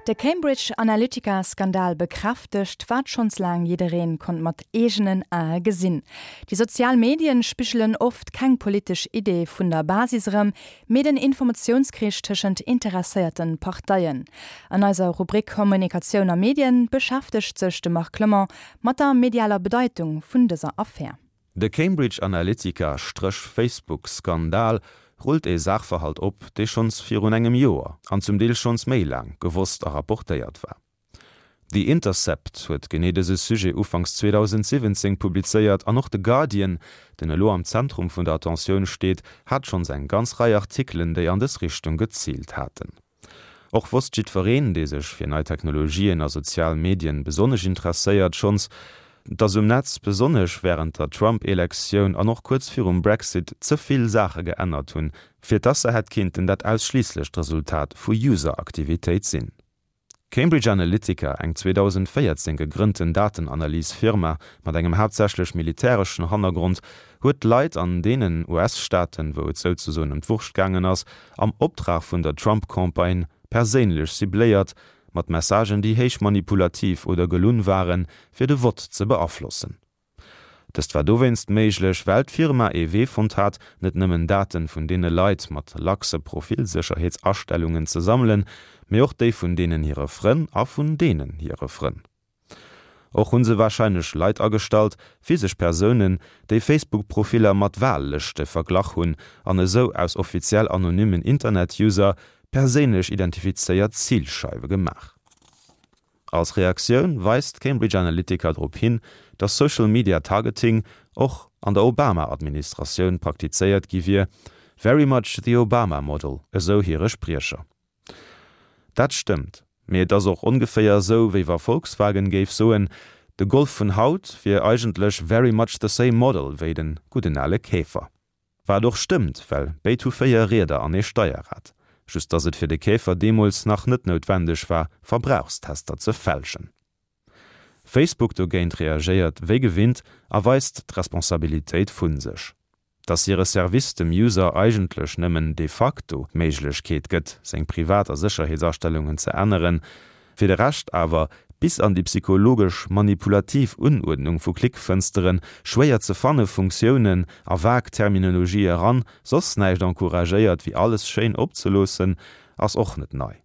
De Cambridge Analytica-Skandal bekräftegt, wat schonns laang jiddereen konnt mat eegenen Ae gesinn, Déi sozial Medien spigelen oft keng politesch Idee vun der Basis erëm, mee den Informatiounskrich tëschent interesséierten Parteien. An eiser Rubrik Kommunikatioun a Medien beschäftegt sech de Marc Clement mat der medialer Bedeitung vun dëser Affär. De Cambridge Analytica-Facebook Skandal rullt ee Saachverhalt op, dee schonns virun engem Joer, an zum Deel schonns méi laang, gewosst a rapportéiert war. The Intercept huet genee dëse Sujet ufanks 2017 publizéiert an och de Guardian, deen elo am Zentrum vun der Attentioun steet, hat schonns eng ganz Rei Artikelen, déi an dës Richtung geziilt haten. Och wosst jiddwereen, dee sech fir nei Technologien a sozial Medien besonnesch interesséiert, schonns, dass um Netz, besonnesch wärend der Trump-Elektioun an och kuerz virum Brexit, ze vill Saache geännert hunn, fir dass se hätt kinnten dat ausschliisslecht Resultat vu User-Aktivitéit sinn. Cambridge Analytica, eng 2014 gegrënnten Datenanalys-Firma mat engem haaptsächlech militäreschen Hannergrond, huet d'Leit an deenen US-Staaten, wou et souzesoen ëm d'Wurscht gaangen ass, am Optrag vun der Trump-Campagne perséinlech cibléiert, mat Messagen, déi héich manipulativ oder gelunn waren, fir de Vott ze beaflossen. Dëst war dowéinst méiglech, well d'Firma ee Wee fonnt hat, net nëmmen Daten vun deene Leit mat laxe Profilsécherheetsastellungen ze sammelen, mee och déi vun deenen hire Frënn a vun deenen hire Frënn. Och hu se warscheinlech Leit agestallt, physesch Persounen, déi Facebook-Profiller mat Wahllëschte verglach hunn an esou aus offiziell anonymen Internet-User perséinlech identifizéiert Zilscheiwe gemaach. Als Reaktioun weist Cambridge Analytica drop hin, datt Social Media Targeting och an der Obama-Administratioun praktizéiert gi wier, very much the Obama model, esou hire Spriecher. Dat stëmmt, mee et ass och ongeféier esou, wéi wa Volkswagen géif soen, de Golf vun haut wier eigentlech very much the same model wéi den gudden ale Käfer. Wat och stëmmt, well béid hu 4 Rieder an ee Steierrad. Just dass et fir de Käfer deemools nach net noutwendeg war, Verbrauchstester ze fälschen. Facebook dogéint reagéiert wéi gewinnt a weist d'Responsabilitéit vu sech. Dass hire Service dem User eigentlech nëmmen de facto d'Méiglechkeet gëtt, seng Privat a Sécherheetsastellungen ze änneren, Fir de Rescht awer, bis an déi psychologesch manipulativ Unuerdnung vu Klickfënsteren, schwéier ze fanne Funktiounen a vag Terminologie eran, soss näischt encouragéiert wéi alles schéin opzeloossen, ass och net nei.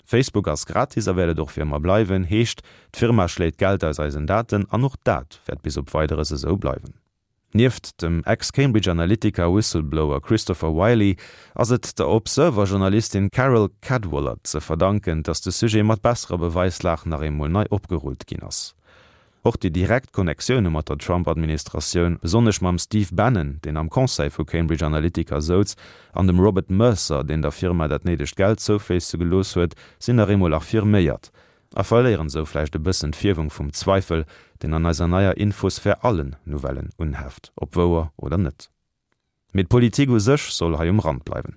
Facebook ass gratis a wäert et och fir ëmmer bleiwen, heescht, d'Firma schléit Geld aus eisen Daten an och dat wäert bis op Weideres esou bleiwen. Nieft dem Ex-Cambridge Analytica Whistleblower Christopher Wylie ass et der Observer-Journalistin Carole Cadwalladr ze verdanken, datt de Sujet mat besserer Beweislag nach eemol nei opgerullt ginn ass. Och déi direkt Connectioune mat der Trump-Administratioun, besonnesch mam Steve Bannon, deen am Conseil vu Cambridge Analytica souz, an dem Robert Mercer, deen der Firma dat néidegt Geld zoufléisse gelooss huet, sinn nach eemol affirméiert. A verléieren esou vläicht e bëssen d'Fierwung vum Zweifel, deen an eiser neier Infosphär allen Nouvellen unheft, ob wouer oder net. Mee d'Politik u sech soll hei um Rand bleiwen.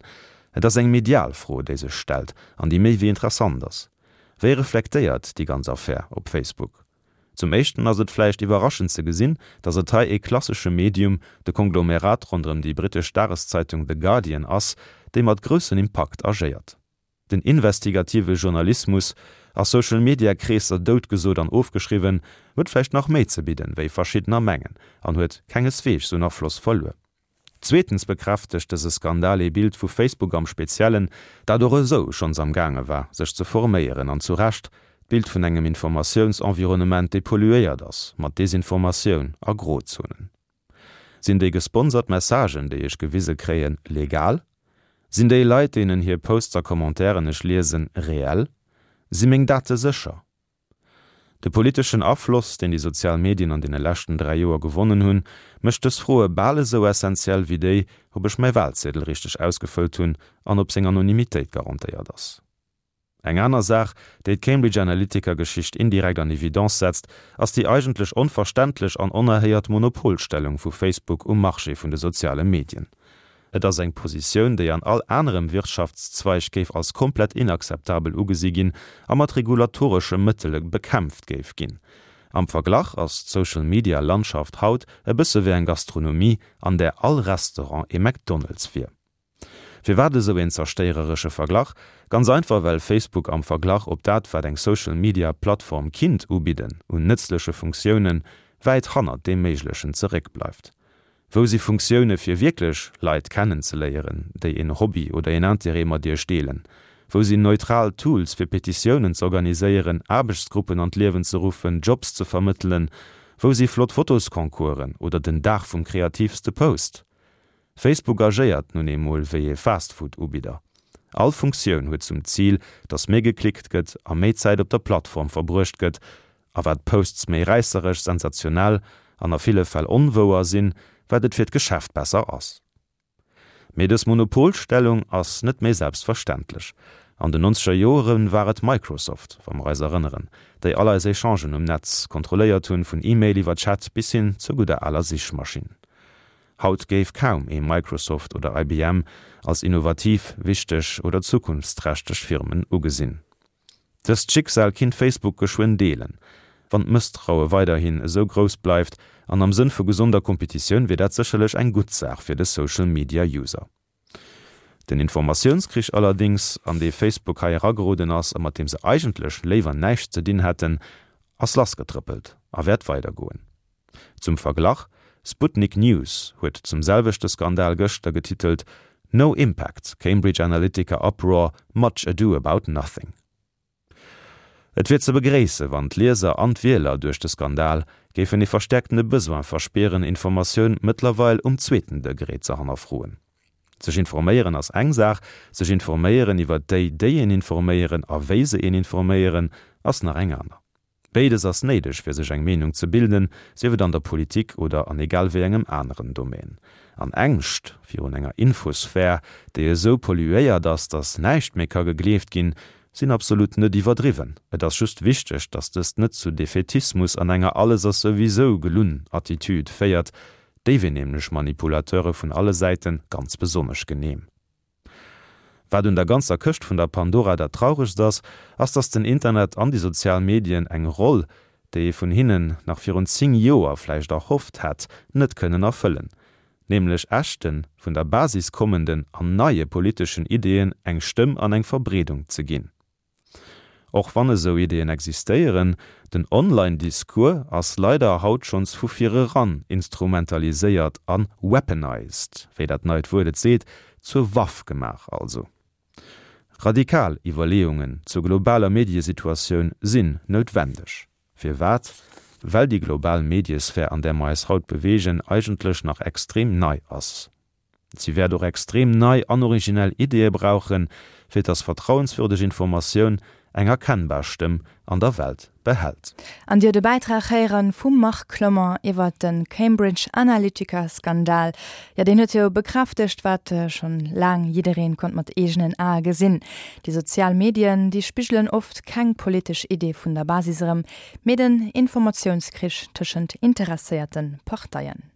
Et ass eng medial Fro, déi sech stellt an déi méi wéi interessant ass. Wéi reflektéiert déi ganz Affär op Facebook? Zum éischten ass et vläicht iwwerraschend ze gesinn, datt et hei ee klassesche Medium, de Konglomerat ronderëm déi brittesch Dageszeitung The Guardian ass, déi mat groussen Impakt agéiert. Den investigative Journalismus, a Social Media Kreesser doutgesot an ofgeschriwwen, huet vläicht nach méi ze bidden, wéi verschiddener mengen, an huet kengesweegs un Afloss verluer. Zweetens bekräftegt dëse Skandal ee Bild vu Facebook am Speziellen, dat och esou schonns am gaange war, sech ze forméieren, an zu Recht, d'Bild vun engem Informatiounsenvironnement, dee polluéiert ass mat Desinformatioun a Grozonen. Sinn déi gesponsert Messagen, déi ech gewise kréien, legal? Sinn déi Leit, deenen hir Posts a Commentairen ech liesen, reell? Si meng Date sécher? De politeschen Afloss, deen déi sozial Medien an deene leschten 3 Joer gewonnen hunn, mécht dës Froe bal esou essenziell wéi déi, ob ech mäi Walziedel richteg ausgefëllt hunn an ob seng Anonymitéit garantéiert ass. Eng aner Saach, déi d'Cambridge Analytica-Geschicht indirekt an Evidence setzt, ass déi eigentlech onverständlech an onerhéiert Monopolstellung vu Facebook um Marché vun de soziale Medien. Et ass eng Positioun, déi an all anerem Wirtschaftszweig géif als komplett inakzeptabel ugesi ginn a mat regulatoresche Mëttele bekämpft géif ginn. Am Verglach ass d'Social-Media-Landschaft haut e bësse wéi eng Gastronomie, an där all Restaurant ee McDonald's wier. Firwat esou een zerstéiereresche Verglach? Ganz einfach well Facebook am Verglach op dat wat eng Social Media Plattform kinnt ubidden un nëtzleche Funktiounen, wäit hannert deem Méiglechen zeréckbleift. Wou si Funktioune fir wierklech Leit kennenzeléieren, déi een Hobby oder een Interêt mat iech deelen? Wou sinn neutral Tools fir Petitiounen z'organiséieren, Aarbechtsgruppen an d'Liewen ze ruffen, Jobs ze vermëttelen? Wou si flott Fotosconcoursen oder den Dag vum kreativste Post? Facebook agéiert nun eemol wéi ee Fastfood-Ubidder. All Funktioun huet zum Zil, datt méi geklickt gëtt a méi Zäit op der Plattform verbruecht gëtt, A wat d'Posts méi räisseresch, sensationell an a ville Fäll onwouer sinn, wat et fir d'Geschäft besser ass. Mee dës Monopolstellung ass net méi selbstverständlech. An den nonzeger Joere war et Microsoft, wa mer eis erënneren, déi all eis Echangen um Netz kontrolléiert hunn, vun E-Mail iwwer Chat bis hin zur gudder aler Sichmaschinn. Haut géif kaum ee Microsoft oder IBM als innovativ, wichteg oder zukunftsträchteg Firmen ugesinn. Dëst Schicksal kinnt Facebook geschwënn deelen, wann d'Mësstraue weiderhin esou grouss bleift, an am Sënn vu gesonder Kompetitioun wier dat sécherlech eng gutt Saach fir de Social Media User. Den Informatiounskrich allerdéngs, an dee Facebook hei erageroden ass a mat deem se eigentlech léiwer näischt ze dinn hätten, ass lassgetrëppelt a wäert weidergoen. Zum Verglach, Sputnik News huet zum selwechte Skandal gëschter getitelt No impact, Cambridge Analytica uproar, much ado about nothing. Et wier ze begréisse wann d'Lieser an d'Wieler duerch de Skandal géifen ee verstäerktene Besoin verspieren, Informatioun mëttlerweil um zweeten Degré ze hannerfroen. Sech informéieren ass eng Saach, sech informéieren iwwer déi, déi een informéieren a wéi se een informéieren, ass nach eng aner. Béides ass néideg fir sech eng Meenung ze bilden, sief et an der Politik oder an egal wéi engem aneren Domaine. An Ängscht virun enger Infosphär, déi esou polluéiert ass, datt näischt méi ka gegleeft ginn, sinn absolut net iwwerdriwwen. Et ass just wichteg, datt dëst net zu Defaitismus an enger Alles ass souwisou gelunn Attitude féiert. Déi wier nämlech Manipulateure vun alle Säite ganz besonnesch genehm. Wat un der ganzer Këscht vun der Pandora dat Trauregst ass, ass dass den Internet an déi sozial Medien eng Roll, déi ee vun hinnen nach virun 10 Joer vläicht erhofft hätt, net kënnen erfëllen, nämlech echten, vun der Basis kommenden an neie politeschen Ideeën eng Stëmm an eng Verbreedung ze ginn. Och wann esou Ideeën existéieren, den Online-Discours ass leider haut schonns vu vireran instrumentaliséiert a weaponized, wéi dat neit Wuert et seet, zur Waff gemaach also. Radikal Iwwerleeungen zur globaler Mediesituatioun sinn noutwendeg. Firwat? Well déi global Mediesphär, an där mer eis haut beweegen, eigentlech nach extrem nei ass. Si wäert och extrem nei an originell Ideeë brauchen, fir dass vertrauenswürdeg Informatioun eng erkennbar Stëmm an der Welt behält. An Dir de Bäitrag héieren vum Marc Clement iwwert de Cambridge Analytica Skandal. Jo, deen huet jo bekräftegt, wat schonn laang jiddereen konnt mat eegenen Ae gesinn. Déi sozial Medien, déi spigelen oft keng politesch Idee vun der Basis erëm, mee den Informatiounskrich tëschent interesséierte Parteien.